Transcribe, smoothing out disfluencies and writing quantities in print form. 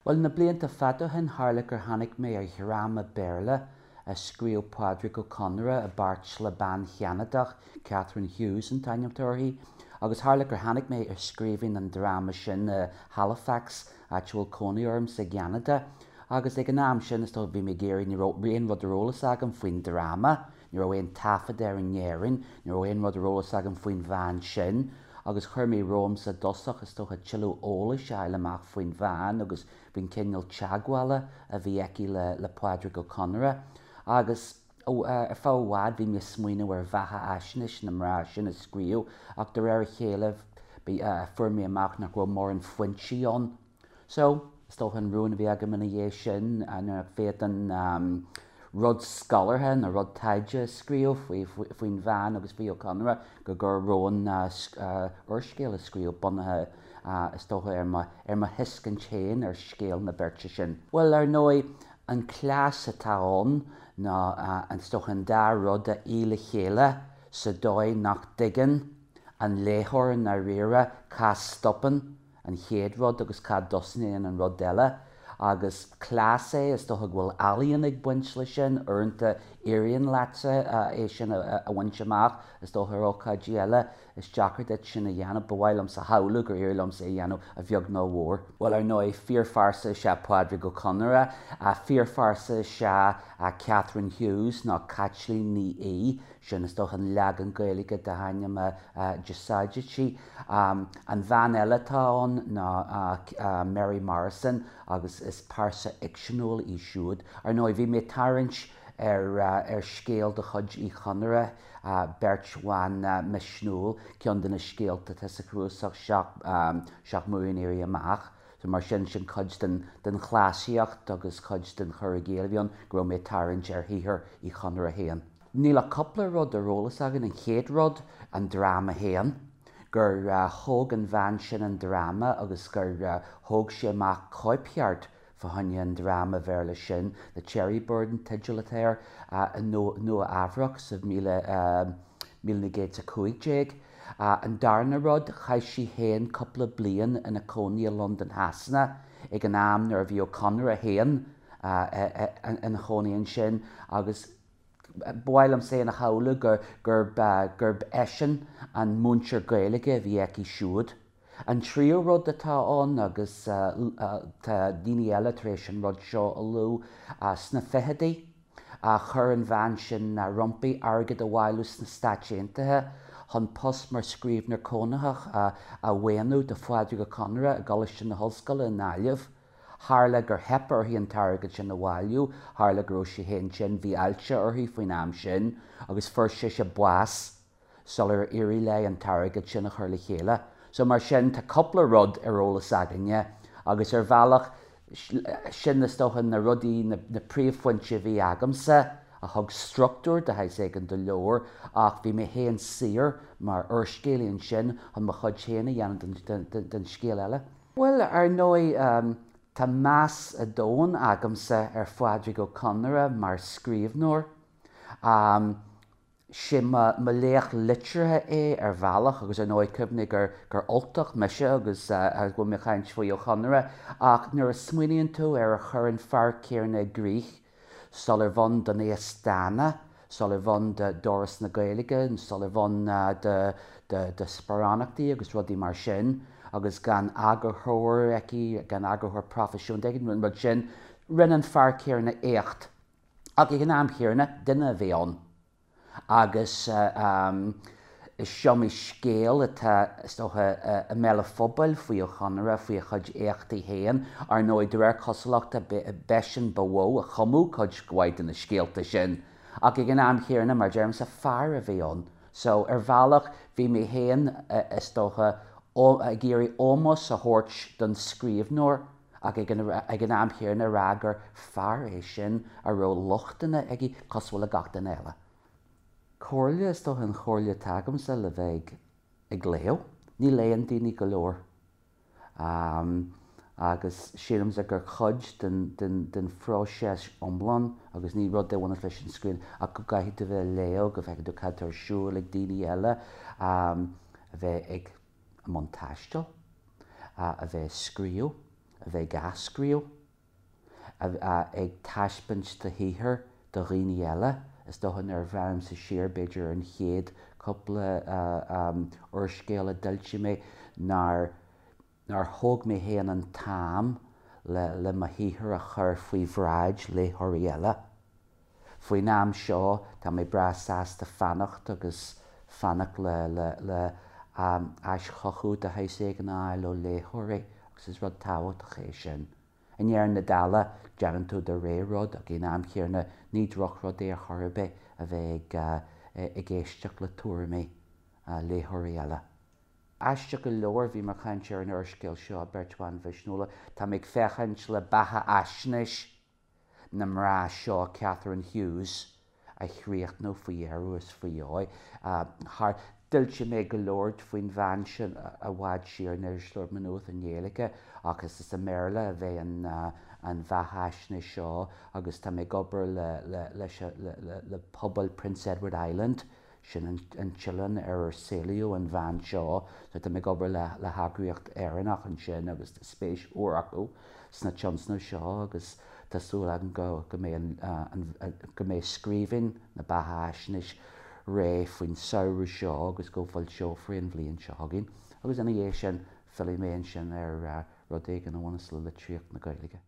Bhuel, na blianta fada ó shin, tharla gur tháinig mé ar dhráma Béarla a scríobh Pádraic Ó Conaire i bpáirt le bean Cheanadach, Catherine Hughes an t-ainm atá uirthi, agus tharla gur tháinig mé ar scríbhinn an dráma sin i Halifax, áit a bhfuil cónaí ormsa i gCeanada. Agus ag an am sin, is dócha, bhí mé ag iarraidh, ní raibh aon rud ar eolas agam faoin dráma, Ní raibh aon taifead air in Éirinn, ní raibh aon rud ar eolas agam faoin bhean sin agus chuir mé romhamsa i dtosach, is dócha, tuilleadh eolais a fháil amach faoin bhean agus faoin chineál teagmhála a bhí aici le Pádraic Ó Conaire. Agus ar feadh i bhfad bhí mé ag smaoineamh ar bheatha-fhaisnéis na mná sin a scríobh ach de réir a chéile fuair mé amach nach raibh mórán foinsí ann. So, is dócha an rún a bhí agam ina dhiaidh sin nuair nach bhféadfainn rud scolártha nó rud taighde a scríobh faoin bhean agus faoi Ó Conaire go gcuirfinn romham úrscéal a scríobh bunaithe is dócha ar mo ar mo thuiscint féin ar scéal na beirte sin. Bhuel, ar ndóigh, an cleas atá ann ná is dócha an dá rud a fhí le chéile sa dóigh nach dtuigeann an léitheoir i ndáiríre cá stopann an chéad rud agus cá dtosnaíonn an rud eile. Agus cleas é, is dócha go bhfuil ealaíon ag baint leis sin, uaireanta éiríonn leatsa é sin a bhaint amach, is dócha ar ócáidí eile is deacair duit sin a dhéanamh. Ba mhaith liomsa a shamhlú gur éirigh liomsa é a dhéanamh a bheag nó a mhór. Bhuel, ar ndóigh, fíorphearsa is ea Pádraig Ó Conaire, fíorphearsa is ea Catherine Hughes nó Caitlín Ní Aoidh, Sin is dócha an leagan Gaeilge dá hainm a d'úsáidtí. An bhean eile atá ann ná Mary Morrison agus is pearsa fhicseanúil í siúd. Ar ndóigh, bhí mé ag tarraingt ar scéal de chuid Uí Chonaire, Beirt Bhan Mhisniúil, ceann de na scéalta atá sa chnuasach Seacht mBua an Éirí Amach. So mar sin, sin cuid den den chleasaíocht agus cuid den chur i gcéill a bhí ann, go raibh mé ag tarraingt ar shaothar Uí Chonaire féin. Níl ach cúpla rud ar eolas againn. An chéad rud, an dráma féin. Gur thóg an bhean sin an dráma agus gur thóg sí amach cóipcheart fá choinne an dráma Bhéarla sin, The Cherry Bird an teideal atá air, i Nua Eabhrac sa 1915. An darna rud, chaith sí féin cúpla bliain ina cónaí i Londain Shasana ag an am nuair a bhí Ó Conaire féin ina chónaí ansin agus, Ba mhaith liom féin a shamhlú gurb gurb eisean an múinteoir Gaeilge a bhí aici siúd. An tríú rud atá ann, agus tá daoine eile tar éis an rud seo a lua, sna fichidí, chuir an bhean sin roimpi airgead a bhailiú sna Stáit Aontaithe chun post mar scríbhneoir cónaitheach a mhaoiniú do Phádraig Ó Conaire i gColáiste na hOllscoile i nGaillimh. Tharla gur theip uirthi an t-airgead sin a bhailiú, tharla go raibh sí féin tinn, bhí ailse uirthi faoin am sin, agus fuair sise bás sular éirigh léi an t-airgead sin a chur le chéile. So mar sin, tá cúpla rud ar eolas againne, agus ar bhealach, sin is dócha na rudaí, na príomhphointí a bhí agamsa a thug struchtúr de shaghas éigin don leabhar, ach bhí mé féin saor mar úrscéalaí ansin chun mo chuid féin a dhéanamh den scéal eile. Bhuel, ar ndóigh, tá meas domhain agamsa ar Phádraig Ó Conaire mar scríbhneoir. 'Sé mo laoch liteartha é ar bhealach agus ar ndóigh cuimhnigh gur gur Ultach mise agus go bhfuil mé ag caint faoi Ó Conaire ach nuair a smaoiníonn tú ar ar chuir an fear céanna i gcrích Sular bh'ann don Aosdána, sular bh'ann d'Fhoras na Gaeilge, sular bh'ann do sparánachtaí agus rudaí mar sin, agus gan eagarthóir aici, gan eagarthóir proifisiúnta aici, an rud sin, rinne an fear céanna éacht. Ach ag an am chéanna, duine a bhí ann. Agus is iomaí scéal atá, is dócha, i mbéal an phobail faoi Ó Conaire, faoi a chuid éachtaí féin. Ar ndóigh, de réir cosúlachta, b'eisean ba mhó a chumadh cuid mhaith de na scéalta sin. Ach ag an am chéanna, mar a deirimse, fear a bhí ann. So, ar bhealach, bhí mé féin, is dócha, ag iarraidh ómós a thabhairt don scríbhneoir ach ag an am chéanna a rá gur fear é sin a raibh lochtanna aige cosúil le gach duine eile. Comhairle, is dócha an chomhairle atá agamsa le bheith ag léamh. Ní léann daoine go leor. Agus sílimse gur cuid den phróiseas iomlán, agus ní rud é a bhaineas leis an scríbhneoireacht, ach go gcaithfidh tú a bheith ag léamh, go bhfeicfidh tú cad tá ar siúl ag daoine eile, a bheith ag i mbun taistil, a bheith ag scríobh, a bheith ag athscríobh, ag taispeáint do shaothair do dhaoine eile. Is dócha nuair a bhreathnaímse siar, b'fhéidir, ar an chéad cúpla úrscéal a d'fhoilsigh mé, nár nár thóg mé féin an t-am le le mo shaothar a chur faoi bhráid léitheoirí eile. Faoin am seo, tá mé breá sásta fanacht agus fanacht le le le aischothú de shaghas éigin a fháil ó léitheoirí agus is rud tábhachtach é sin. I ndeireadh na dála, déanann tú do rogha rud ach ag an am chéanna ní drochrud é ar chor ar bith a bheith ag ag éisteacht le tuairimí léitheoirí eile. Aisteach go leor, bhí mé ag caint ar an úrscéal seo, Beirt Bhan Mhisniúla. Tá mé ag féachaint le beatha-fhaisnéis na mná seo, Catherine Hughes, a chríochnú faoi dheireadh is faoi dheoidh. Thar, d'fhoilsigh mé go leor faoin bhean sin i bhfad siar in Irisleabhar Mhaigh Nuad i nGaeilge ach is i mBéarla a bheidh an an bheatha-fhaisnéis seo agus tá mé ag obair le le leis le le pobal Prince Edward Island Sin an t-oileán ar ar saolaíodh an bhean seo. So tá mé ag obair le heagraíocht Éireannach ansin agus tá spéis mhór acu sna tionscnaimh seo agus tá súil agam go go mbeidh an go mbeidh scríbhinn na beatha-fhaisnéis réidh faoin samhradh seo agus go bhfoilseofar í an bhliain seo chugainn. Agus ina dhiaidh sin fillfidh mé ansin ar rud éigin a bhaineas le litríocht na Gaeilge.